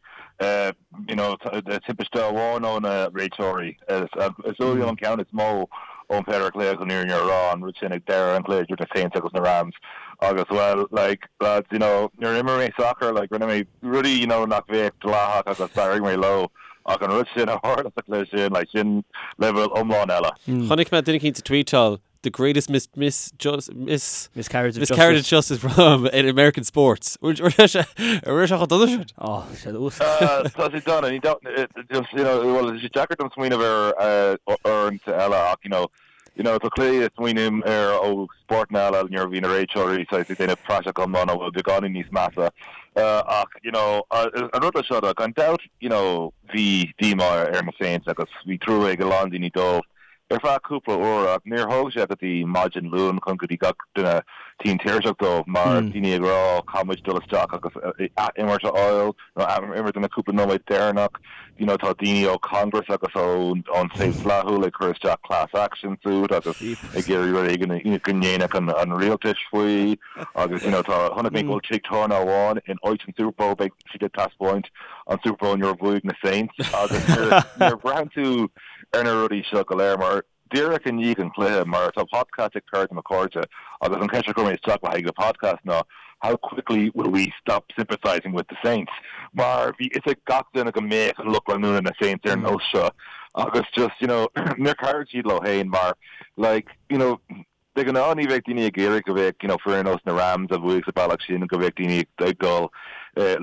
you know, timpiste amháin ó na réiteoirí. Is dóigh liom an ceann is mó ón péire cluiche chun an fhírinne a rá, an rud sin ag deireadh an chluiche idir na Saints agus na Rams. Agus well, like, lads, you know, nuair a imir mé sacar, like, rinne mé rudaí, you know, nach bheadh dleathach agus d'éirigh mé leo. Ach an rud sin a tharla sa chluiche sin, like, sin leibhéal iomlán eile. Chonaic mé duine eicínt ag tweetáil the greatest mis mis just mis Miscarriage of miscarriage of justice from in American sports. An raibh sé chomh dona sin? Oh, sé ús. Tá sé dona, ní just you know, well, tá sé deacair dom smaoineamh ar uaireanta eile ach you know, you know, tá cluichí a smaoiním ar ó spórtanna eile nuair a bhí na réiteoirí saghas ag déanamh praiseach iomlán a bhfuil beagáinín níos measa ach you know, an rud le seo gan dabht you know, bhí díomá ar na Saints agus bhí trua ag a lán daoine dóibh. ar feadh cúpla uair ach níor thóg sé go dtí maidin Luain chun go dtí gach duine tinn tuirseach dóibh mar daoine ag rá caithfidh muid dul isteach agus ath-imirt a fháil nó ath-imirt na cúpla nóiméad deireanach you know tá daoine ó Congress agus ón taobh dlíthiúil ag cur isteach class action suit agus ag iarraidh rud éigin go ndéanfadh an rialtais faoi agus you know tá chonaic mé go bhfuil tigh tábhairne amháin in áit an Super Bowl beidh siad ag taispeáint an Super Bowl nuair a bhuaigh na Saints agus nuair a bhraitheann tú ar na rudaí seo go léir mar díreach i ndiaidh an chluiche mar tá podcast ag cara de mo chairde agus an cheist a chuir mé isteach le haghaidh an podcast ná how quickly will we stop sympathising with the Saints mar bhí fhios ag gach duine go mbeadh an lucht leanúna na Saints ar nós seo agus just you know níor chabhraigh siad leo féin mar like you know De ghnáth ní bheadh daoine ag iarraidh go mbeadh you know foireann ar nós na Rams a bhuaigh sa bealach sin go mbeadh daoine ag dul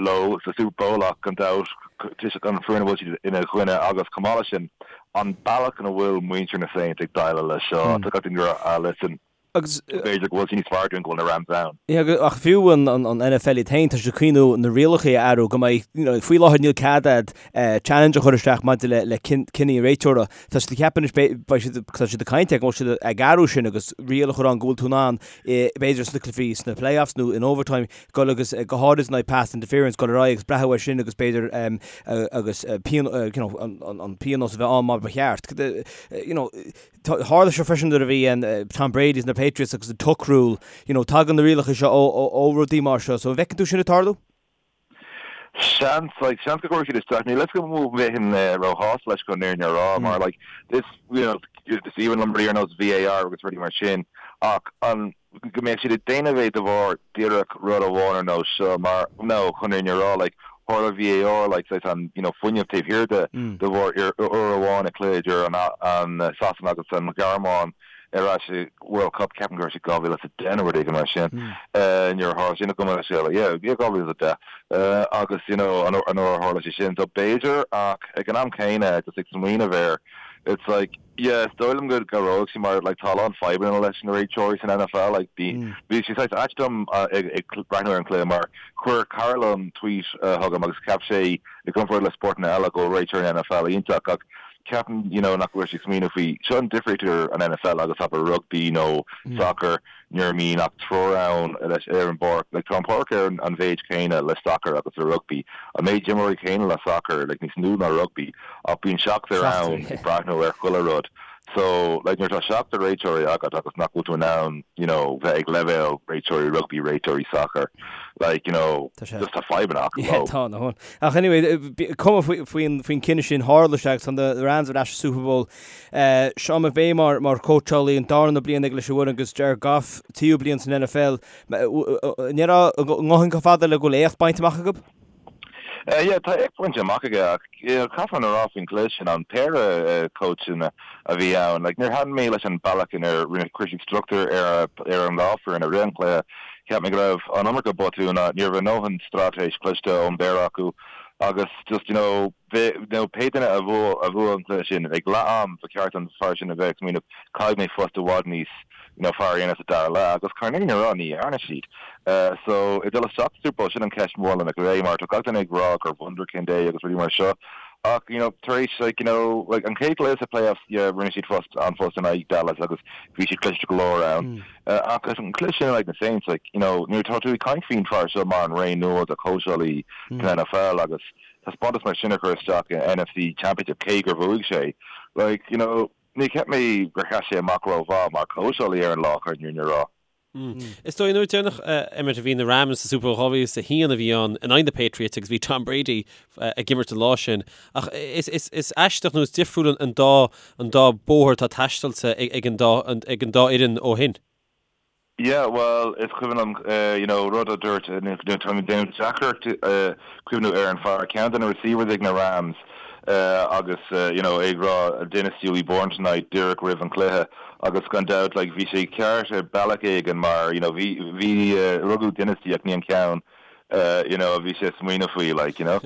leo sa Super Bowl ach gan dabht toisc an foireann a bhfuil siad ina gcoinne agus chomh maith leis sin an bealach ina bhfuil muintir na Saints ag déileáil leis seo tá gach duine ag rá ah listen. Agus b'fhéidir go bhfuil sé níos fearr dúinn go bhfuil na Rams ann. Yeah, ach fiú an NFL iad féin, tá siad ag cuimhniú na rialacha a athrú go mbeidh, you know, faoi láthair níl cead a'd challenge a chur isteach maidir le le cinní an réiteora. Tá siad ag ceapadh anois beidh siad, tá siad ag caint air go bhfuil siad ag athrú sin agus riail a chur ann go bhfuil tú in ann b'fhéidir sna cluichí sna playoffs nó in overtime dul agus go háirid in aghaidh pass interference dul ar aghaidh agus breathnú air sin agus b'fhéidir agus you know, an pionós a bheith ann mar ba cheart. You know, Tharla seo freisin nuair a bhí an Tom Brady is na Patriots agus an tuck rule, you know, tagann na rialacha seo ó ó rudaí mar seo, so an bhfeiceann tú sin ag tarlú? Seans, like, seans go gcuirfidh siad isteach, níl fhios agam an mbeinn róshásta leis chun an fhírinne a rá, mar like, is, you know, is aoibhinn liom rudaí ar nós VAR agus rudaí mar sin, ach an, go mbeadh siad ag déanamh é de bharr díreach rud amháin ar nós seo mar no chun an fhírinne a rá like tharla VAR like saghas an you know fuinneamh taobh thiar de de bharr uair amháin i cluiche idir an an Sasana agus an Ghearmáin ar ais i World Cup ceapaim go raibh sé 2010 nó rud éigin mar sin nuair a tharla sin go mbeadh sé yeah yeah 2010 agus you know an uair a tharla sé sin so b'fhéidir ach ag an am céanna just ag smaoineamh air it's like Yeah, is dóigh liom go gcabhróidh sé mar like tá a lán fadhbanna leis na réiteoirí san NFL like bhí bhí sé saghas ait dom ag ag breathnú ar an cluiche mar chuir cara liom tweet chugam agus cheap sé i gcomparáid le spórtanna eile go bhfuil réiteoirí an NFL iontach ach ceapaim you know nach bhfuil sé ag smaoineamh faoi seo an difríocht idir an NFL agus abair rugbaí nó sacar nuair a mbíonn ach triúr ann leis ar an bpáirc. Like tá an páirc ar an mhéid céanna le sacar agus le rugbaí. An méid imreoirí céanna le sacar, like níos lú ná rugbaí, ach bíonn seachtar ann ag breathnú ar chuile rud. So like nuair atá seachtar réiteoirí agat agus nach bhfuil tú in ann you know bheith ag leibhéal réiteoirí rugbaí, réiteoirí sacair, like you know Tá sé. just tá fadhbanna acu Yeah, leo. tá, no. Ach anyway, cuma faoin faoin cinneadh sin, tharla sé agus tá na Rams ar ais sa Super Bowl. Sean McVay mar chóitseálaí, an darna bliain aige leis an bhfoireann agus Jared Goff, tríú bliain san NFL. An ndéarfá an ngabhann chomh fada le go bhfuil éacht bainte amach acu? Yeah, tá éacht bainte amach aige ach caithfear a rá faoin gcluiche sin, an péire cóitseanna a bhí ann, like níor thaitin mé leis an bealach inar rinne chuir siad struchtúr ar ar an dhá foireann i rith an chluiche. Cheap mé go raibh an iomarca botún, ní raibh a ndóthain straitéis cliste ón bpéire acu agus just you know, nó pé duine a bhuaigh an cluiche sin, ag leath am, ba cheart don fear sin a bheith ag smaoineamh, caithfidh mé post i bhfad níos you know fearr a dhéanamh sa dara leath, agus chun an fhírinne a rá, ní dhearna siad. So, ag dul isteach sa Super Bowl, sin an ceist mhór le McVay, mar tá gach duine ag rá gur wunderkind é agus rudaí mar seo, ach you know tar éis like you know like an chéad chluiche sa playoffs, yeah, rinne siad post, an-phost in aghaidh Dallas agus bhí siad cliste go leor ann. Ach an cluiche sin in aghaidh na Saints, like you know nuair atá tú ag caint faoin fear seo mar an ré nua de chóitseálaí san NFL agus taispeántas mar sin a chur isteach in NFC Championship cé gur bhuaigh sé. Like, you know, ní cheap mé gur sheas sé amach rómhaith mar chóitseálaí ar an lá chun an fhírinne a rá. Is dóigh an uair deireanach, Emmet, a bhí na Rams sa Super Bowl 2001 a bhí ann in aghaidh na Patriots agus bhí Tom Brady ag imirt an lá sin. Ach is, is, is aisteach nó is difriúil an dá, an dá bóthar atá taistealta ag an dá, ag an dá fhoireann ó shin. Yeah, bhuel, is cuimhin liom, you know, rud a dúirt, tá mé ag déanamh deacracht cuimhniú ar an fear, ceann de na receivers ag na Rams agus, you know, é ag rá dynasty will be born tonight díreach roimh an chluiche agus gan dabht, like, bhí sé ceart ar bealach éigin mar, you know, bhí, bhí, rugadh dynasty ach ní an ceann you know, a bhí sé ag smaoineamh faoi, like, you know.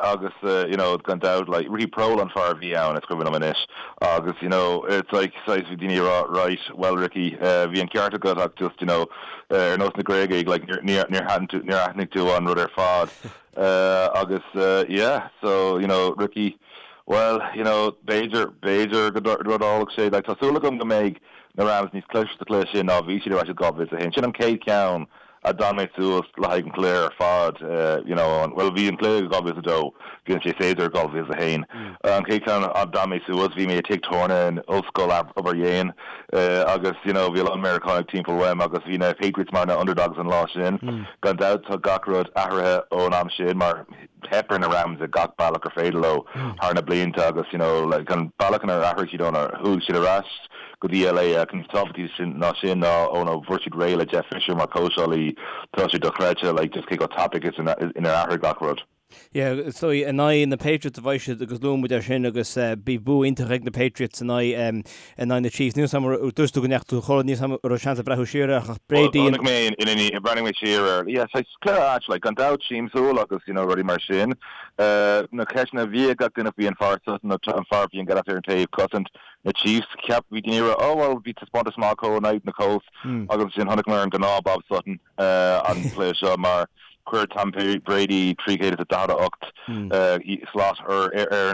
Agus, you know, gan dabht, like, Ricky Proehl an fear a bhí ann, is cuimhin liom anois. Agus, you know, it's like, saghas, bhí daoine ag rá, right, well, Ricky, bhí an ceart agat ach just, you know, ar nós na Gréagaigh, like, níor, níor aithin tú, níor aithnigh tú an rud ar fad. Agus, yeah, so, you know, Ricky, well, you know, b'fhéidir, b'fhéidir go dtarlódh sé, like, tá súil agam go mbeidh na Rams níos cliste sa chluiche sin ná bhí siad ar ais i 2001. Sin an chéad cheann a d'fhan mé suas le haghaidh an chluiche ar fad, you know, bhuel bhí an cluiche i 2002, bhí an séasúr i 2001. An chéad cheann a d'fhan mé suas, bhí mé i tigh tábhairne in Ollscoil Obar Dhéin agus, you know, bhí a lán Meiriceánaigh timpeall uaim agus bhí na Patriots mar na underdogs an lá sin. Gan dabht tá gach rud athraithe ón am sin mar theip ar na Rams i gach bealach gur féidir leo thar na blianta agus you know like an bealach inar athraigh siad ónar chuaigh siad ar ais go dtí LA ach níos tábhachtaí sin ná sin ná óna bhfuair siad réidh le Jeff Fisher mar chóitseálaí tá sé dochreidte like just cé chomh tapaidh is inar athraigh gach rud. Yeah, is dóigh in aghaidh na Patriots a bheidh siad agus luaigh muid é sin agus bhí bua iontach ag na Patriots in aghaidh in aghaidh na Chiefs. Níl 'fhios a'm dúirt tú go ndeachaigh tú a chodladh, níl 'fhios a'm an raibh seans a'd breathnú siar air ach Brady Chonaic mé in in bhreathnaigh mé siar air. Yeah, saghas cluiche ait, like, gan dabht siamsúil agus, you know, rudaí mar sin. Na ceisteanna a bhí ag gach duine faoi an fear Sutton, an fear a bhí an gealach ar an taobh cosaint na Chiefs, cheap bhí daoine ag rá, oh well, bhí taispeántas maith acu in aghaidh na Colts agus ansin chonaic mé an gnáth Bob Sutton. an cluiche seo mar chuir Tom Brady 348 slat orthu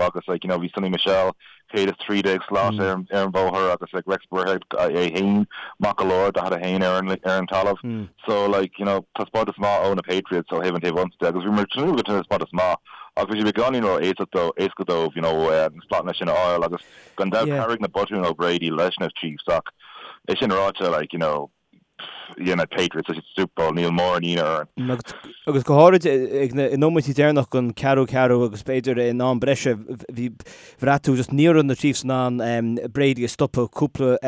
agus like you know bhí Sony Michel 113 slat ar an bhóthar agus like Rex Burkhead é féin maith go leor 41 ar an ar an talamh. So like you know taispeántas maith ó na Patriots ó thaobh an taobh ionsaí de agus bhí muid ag tnúth le taispeántas maith ach bhí sé beagáinín ró éasca dóibh you know na slatanna sin a fháil agus gan dabht chabhraigh na botúin ó Brady leis na Chiefs ach É sin ráite, like, you know, dhein na Patriots sa Super Bowl, níl mórán ionadh orainn. Agus go háirid ag na nóiméidí deireanach den ceathrú ceathrú agus b'fhéidir in am breise bhí bhraith tú just ní raibh na Chiefs in ann Brady a stopadh cúpla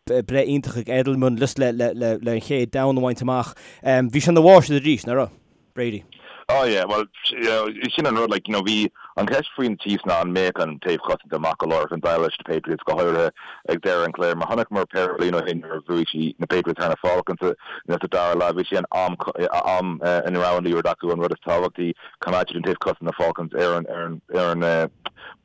breith iontach ag Edelman just le le le le an chéad down a bhaint amach. Bhí sé ina mháistir arís, nach raibh? Brady. Oh yeah, well, you know, sin an rud, like, you know, bhí an cheist faoi na Chiefs ná an mbeadh an taobh cosanta maith go leor chun déileáil leis na Patriots, go háirithe ag deireadh an chluiche, mar chonaiceamar péire bliain ó shin nuair a bhuaigh siad na Patriots thar na Falcons sa dara leath, bhí sé an am, am ina raibh an liathróid acu an rud is tábhachtaí, coimeád siad an taobh cosanta na Falcons ar an, ar an, ar an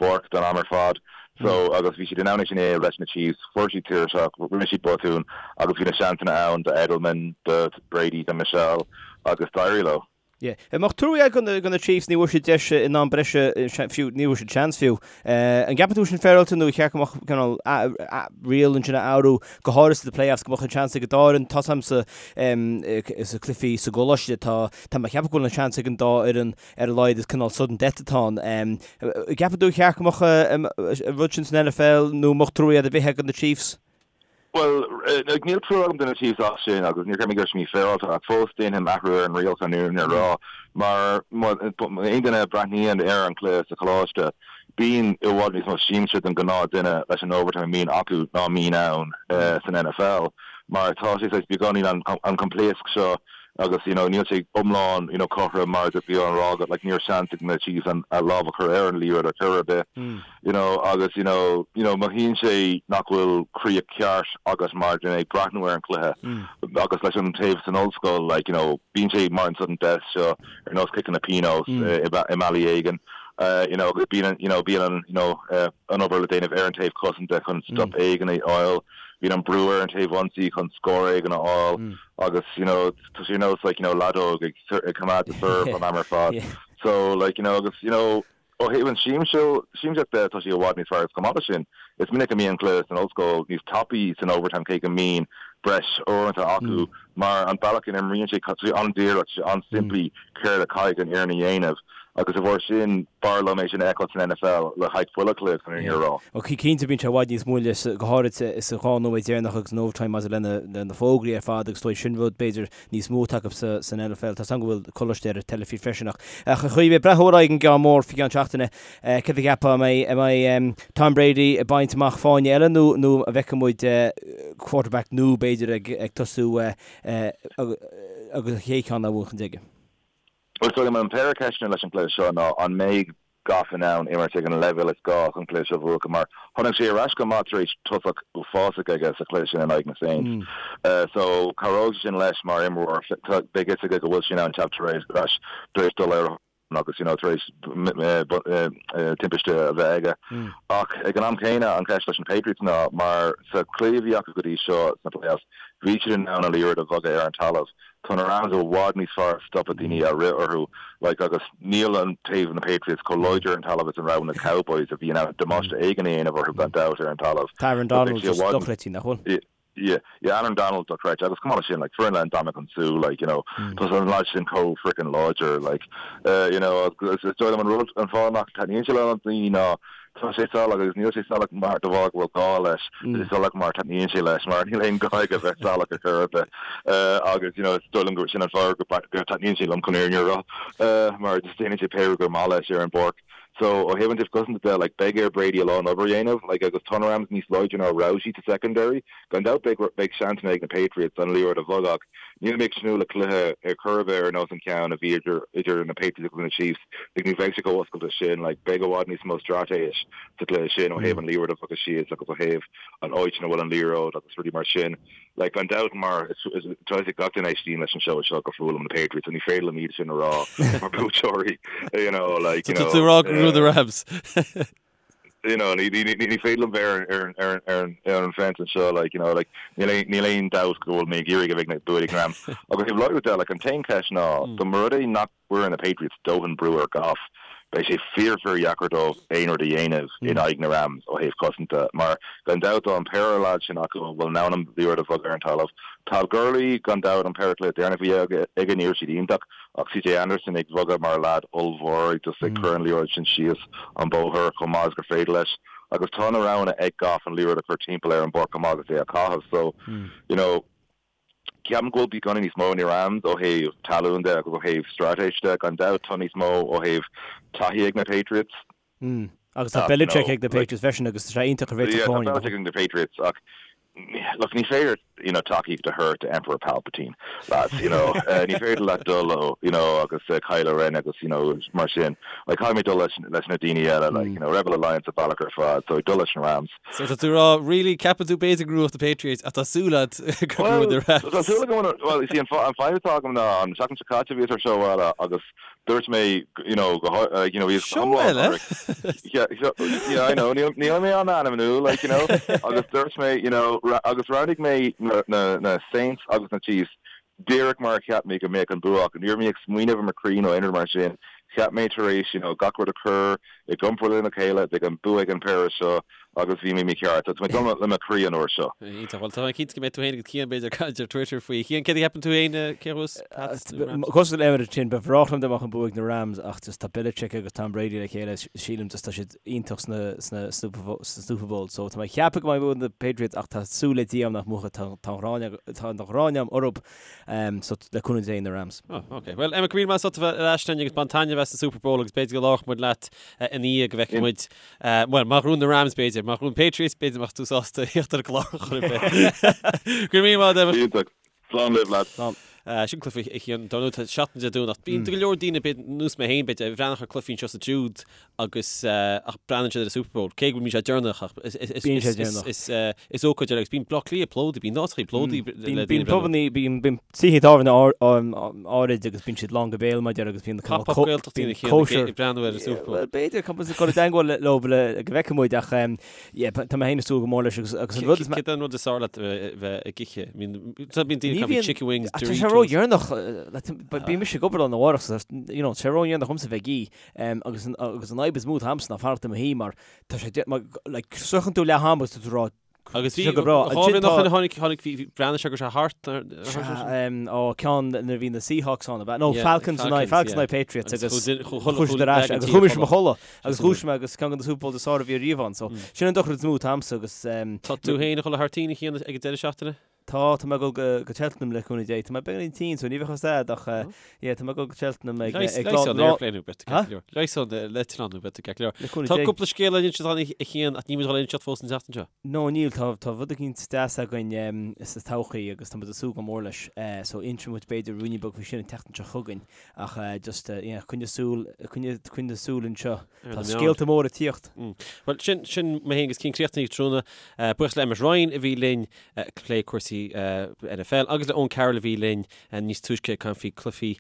bpáirc don am ar fad. So, agus bhí siad in ann é sin a dhéanamh leis na Chiefs, fuair siad tuirseach, rinne siad botúin agus bhí na seansanna ann do Edelman, do Brady, do Michel agus d'éirigh leo. Yeah. An mbeadh trua agat do na Chiefs, ní bhfuair siad deis in am breise fiú, ní bhfuair siad seans fiú. An gceapann tú sin féaráilte nó ar cheart go mbeadh cineál riail ansin a athrú, go háirithe sna playoffs, go mbeadh an seans ag an dá fhoireann, tá 's a'm sa sa cluichí sa gcoláiste, tá tá mé ag ceapadh go bhfuil an seans ag an dá fhoireann ar a laghad is cineál sudden death atá ann. Gceapann tú ar cheart go mbeadh an rud sin san NFL nó an mbeadh trua ar bith agat do na Chiefs? Bhuel, níl trua agam do na Chiefs as sin agus níor cheap mé go raibh sé mífhéaráilte ach fós déanfainn athrú ar an riail chun an fhírinne a rá mar aon duine a bhreathnaíonn ar an chluiche sa choláiste bíonn i bhfad níos mó siamsa don ghnáth duine leis an overtime a mbíonn acu ná mbíonn ann san NFL mar tá sé saghas beagáinín an coimpléasc seo agus you know níl sé iomlán you know cothrom mar a bhí á rá agat like ní raibh seans ag na Chiefs an a lámh a chur ar an liathróid ar chor ar bith you know agus you know you know mothaíonn sé nach bhfuil críoch ceart agat mar duine ag breathnú ar an chluiche agus leis an taobh san ollscoil like you know bíonn sé mar an sudden death seo ar nós ciceanna pionóis i mbealaí éigin you know agus bíonn you know bíonn an you know an obair le déanamh ar an taobh cosanta chun stop éigin a fháil bíonn an brú ar an taobh ionsaí chun scór éigin a fháil agus you know tá sé ar nós like you know leadóg ag ag coimeád the serve an am ar fad so like you know agus you know ó thaobh an siamsaíocht de tá sé i bhfad níos fearr agus chomh maith leis sin is minic a mbíonn an cluiche san ollscoil níos tapaí san overtime cé go mbíonn breis uaireanta acu mar an bealach ina n-imríonn sé tá sé an-díreach tá sé an-simplí céard a chaithfidh an fhoireann a dhéanamh agus de bharr sin b'fhearr liom é sin a fheiceáil san NFL le haghaidh chuile chluiche chun an fhírinne a rá. Ó cinnte bíonn sé i bhfad níos moille, go háirid sa 2 nóiméad deireanach agus an overtime maidir le na fógraí ar fad agus is dóigh sin rud b'fhéidir níos mó atá acu san NFL. Tá 's agam go bhfuil coláiste ar an teilifís freisin ach a Chaoimhe, breathnú ar aghaidh an gceann mór faoi cheann seachtaine, céard a cheapfá, an mbeidh an mbeidh Tom Brady ag baint amach fáinne eile nó nó an bhfeicfidh muid quarterback nua b'fhéidir ag ag tosú agus an chéad cheann á bhuachan aige? Bhuel, is dóigh liom an péire ceisteanna leis an gcluiche seo ná an mbeidh Goff in ann imirt ag an leibhéal is gá chun cluiche seo a bhuachan mar tháinig sé ar ais go maith tar éis tosach uafásach aige sa chluiche sin in aghaidh na Saints. So cabhróidh sé sin leis mar imreoir. Beidh fhios aige go bhfuil sé in ann teacht ar ais tar éis dul ar agus you know tar éis timpiste a bheith aige. Ach ag an am céanna an cheist leis na Patriots ná mar sa chluiche a bhí acu go dtí seo sna playoffs bhí siad in ann an liathróid a bhogadh ar an talamh. Tá na Rams i bhfad níos fearr ag stopadh daoine a rith orthu like agus níl an taobh na Patriots chomh láidir ar an talamh is a raibh na Cowboys a bhí in ann damáiste éigin a dhéanamh orthu gan dabht ar an talamh. Tá Aaron Donald just dochreidte, nach bhfuil? Yeah, yeah, Aaron Donald dochreidte agus chomh maith leis sin like foireann le Ndamukong Suh like you know tá an lad sin chomh freaking láidir like uh, you know is dóigh liom an rud an fáth nach taitníonn sé le daoine ná Tá sé salach agus níl sé salach mar de bharr go bhfuil gá leis, tá sé salach mar taitníonn sé leis, mar níl aon gá aige bheith salach ar chor ar bith. Agus you know is dóigh liom gur sin an fáth go dtaitníonn sé liom chun an fhírinne a rá, mar just déanann sé pé rud gur maith leis ar an bpáirc. So ó thaobh an taobh cosanta de, like, beidh ar Brady a lán obair a dhéanamh, like, agus tá na Rams níos láidre ná a raibh siad sa secondary. Gan dabht beidh, beidh seansanna ag na Patriots an liathróid a bhogadh ach níl mé ag tnúth le cluiche ar chor ar bith ar nós an ceann a bhí idir, idir na Patriots agus na Chiefs. Like, ní bheidh sé chomh oscailte sin, like, beidh i bhfad níos mó straitéis sa chluiche sin ó thaobh an liathróid a bhogadh síos agus ó thaobh an áit ina bhfuil an liathróid agus rudaí mar sin. Like, gan dabht, mar is tá a fhios ag gach duine a éistíonn leis an seó seo gur fuath liom na Patriots, so ní féidir liom iad sin a rá mar buaiteoirí, you know, like, you know. Tá tú ag rá go bhfuil na Rams. You know, ní, ní, ní, ní féidir liom bheith ar, ar, ar, ar, ar an fence anseo, like, you know, like, níl aon, níl aon dabht go bhfuil mé ag iarraidh go mbeidh na bua ag na Rams. Agus ó thaobh láithriú de, like, an t-aon cheist ná, dá mba rud é nach gcuireann na Patriots dóthain brú ar Goff, beidh sé fíor fíor dheacair dóibh aon rud a dhéanamh in aghaidh na Rams ó thaobh cosanta mar gan dabht tá an péire leaid sin acu a bhfuil in ann an liathróid a bhogadh ar an talamh. Todd Gurley gan dabht an péire cluiche deireanach a bhí aige ní raibh siad iontach ach CJ Anderson ag bogadh mar leaid ollmhór just ag cur an liathróid sin síos an bóthar chomh maith is gur féidir leis agus tá na roghanna ag Goff an liathróid a chur timpeall ar an bpáirc chomh maith agus é a chaitheamh so you know Ceapaim go bhfuil beagáinín níos mó na Rams ó thaobh talún de agus ó thaobh straitéis de. Gan dabht tá níos mó ó thaobh taithí ag na Patriots. Mm. Agus tá Belichick ag na Patriots freisin agus tá sé iontach a réiteach Yeah, tá Belichick ag na Patriots ach look, ní féidir you know, tacaíocht a thabhairt to Emperor Palpatine, lads, you know. Uh, ní féidir leat dul leo, you know, agus uh, Kylo Ren agus, you know, mar sin. Like, caithfidh mé dul leis, leis na daoine eile, like, you know, Rebel Alliance an bealach ar fad, so dul leis na Rams. So tá tú ag rá, really, ceapann tú b'fhéidir go mbuafadh na Patriots ach tá súil agat go mbuafaidh na Rams. Tá súil agam, well, you see, an fadhb atá agam ná an seachtain seo caite bhíos ar seó eile agus dúirt mé, you know, go, like, you know, bhíos Seó eile? Yeah, yeah, I know, níl mé á n-ainmniú, like, you know, agus dúirt mé, you know, agus roghnaigh mé na, na, na Saints agus na Chiefs díreach mar a cheap mé go mbeadh an bua acu. Ní raibh mé ag smaoineamh ar mo chroí nó aon rud mar sin. Cheap mé tar éis, you know, gach rud a chur i gcomparáid lena chéile, beidh an bua ag an péire seo agus bhí mé mícheart. So tá mé ag dul le mo chroí an uair seo. Iontach. Bhuel, tá mé cinnte go mbeidh tú féin agus Cian b'fhéidir ag caint ar Twitter faoi. Cian, céard a cheapann tú féin, cé a bhuafas? Pats nó Rams? Cosúil le Emmet ansin, ba bhreá liom dá mbeadh an bua ag na Rams ach just tá Belichick agus Tom Brady le chéile, sílim just tá siad iontach sna, sna, sna Super Bowls. So tá mé ag ceapadh go mbeidh bua ag na Patriots ach tá súil le Dia agam nach mbuafaidh, tá, tá an ghráin, tá an ghráin agam orthu. So le cúnamh Dé na Rams. Oh, ok. Well, Emmet, go raibh míle maith agat as ucht a bheith ar ais linn agus bain taitneamh as an Super Bowl agus b'fhéidir go labharfadh muid leat ina dhiaidh go bhfeicfidh muid, bhuel, má ghnóthaíonn na Rams b'fhéidir, má ghnóthaíonn Patriots b'fhéidir mbeadh tú sásta theacht ar an gclár chor ar bith. Go raibh míle maith agat, Emmet. Iontach. Slán libh, lads. Slán. Sin cluiche a Chian, dar ndóigh tá seachtain Dé Domhnaigh. Bíonn go leor daoine, b'fhéidir, nós mé féin, b'fhéidir, ag breathnú ar cluichí anseo is ansiúd agus ach breathnaíonn siad ar an Super Bowl, cé go mbíonn sé deireanach ach Bíonn sé deireanach. is ócáid eile agus bíonn Bleá Cliath plódaithe, bíonn áiteachaí plódaithe le daoine Bíonn pubannaí, bíonn bíonn tithe tábhairne áirid agus bíonn siad lán go béal mar a déarfá agus bíonn cineál Pop-up Gaeltachtaí ina chéanna ag breathnú ar an Super Bowl. Bhuel b'fhéidir, caithfidh muid dul i dteagmháil leo le go bhfeicfidh muid ach yeah tá mé féin ag súil go mór leis agus agus an rud is Céard é an rud is fearr leat a bheith ag ithe? Bíonn daoine ag caint chicken wings, Tá sé ródheireanach, bíonn mise ag obair lá arna mhárach so you know tá sé ródheireanach dhomsa bheith ag ithe. Agus an fhadhb is mó atá a'msa ná fanacht i mo shuí mar tá sé mar like sroicheann tú leath am agus tá tú ag rá Agus bhí go breá. Ansin tá tháinig tháinig bhí breathnaigh sé go sé thart ó ceann nuair a bhí na Seahawks ann ab ea? No Falcons in aghaidh Falcons in aghaidh Patriots agus chuaigh siad ar ais agus chuaigh mise i mo chodladh agus dhúisigh mé agus ceann de na Super Bowls is fearr a bhí riamh ann so sin an dochar is mó atá a'msa agus Tá tú féin ag dul thar toinn a Chian ag an deireadh seachtaine? Tá, tá mé ag dul go, go Cheltenham le cúnamh Dé. Tá mé beagáinín tinn, so ní bheadh fhios a'd ach eh, yeah, tá mé ag dul go Cheltenham ag, ag lá, Leigheas an lá, airplane thú, beidh tú ceart go leor. Leigheas an eitleán thú, beidh tú ceart go leor. Le cúnamh Tá Dé. cúpla scéal le inseacht againn a Chian ach níl muid ag dul a inseacht fós an tseachtain seo. No, níl, tá, tá rud eicínt deas againn em, sa todhchaí agus tá muid ag súil go mór leis. Eh, so inseoidh muid b'fhéidir ruainnín beag faoi sin an tseachtain seo chugainn ach eh, just eh, yeah, coinnigh súil, coinnigh, coinnigh súil anseo. Tá scéalta móra ag tíocht. Bhuel, sin, sin mé féin agus Cian críochnaithe tráthnóna. Buíochas le Emmet Ryan a bhí linn ag plé cúrsaí NFL agus le Eoin Carroll a bhí linn níos túisce ag caint faoi cluichí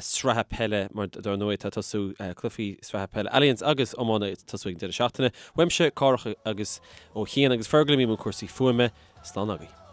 sraithe peile mar dar ndóigh tá tosú cluichí sraithe peile Allianz agus iomána ag tosú ag an deireadh seachtaine. Uaimse, Cárthach agus ó Chian agus Fergal a bhí i mbun cúrsaí fuaime, slán agaibh.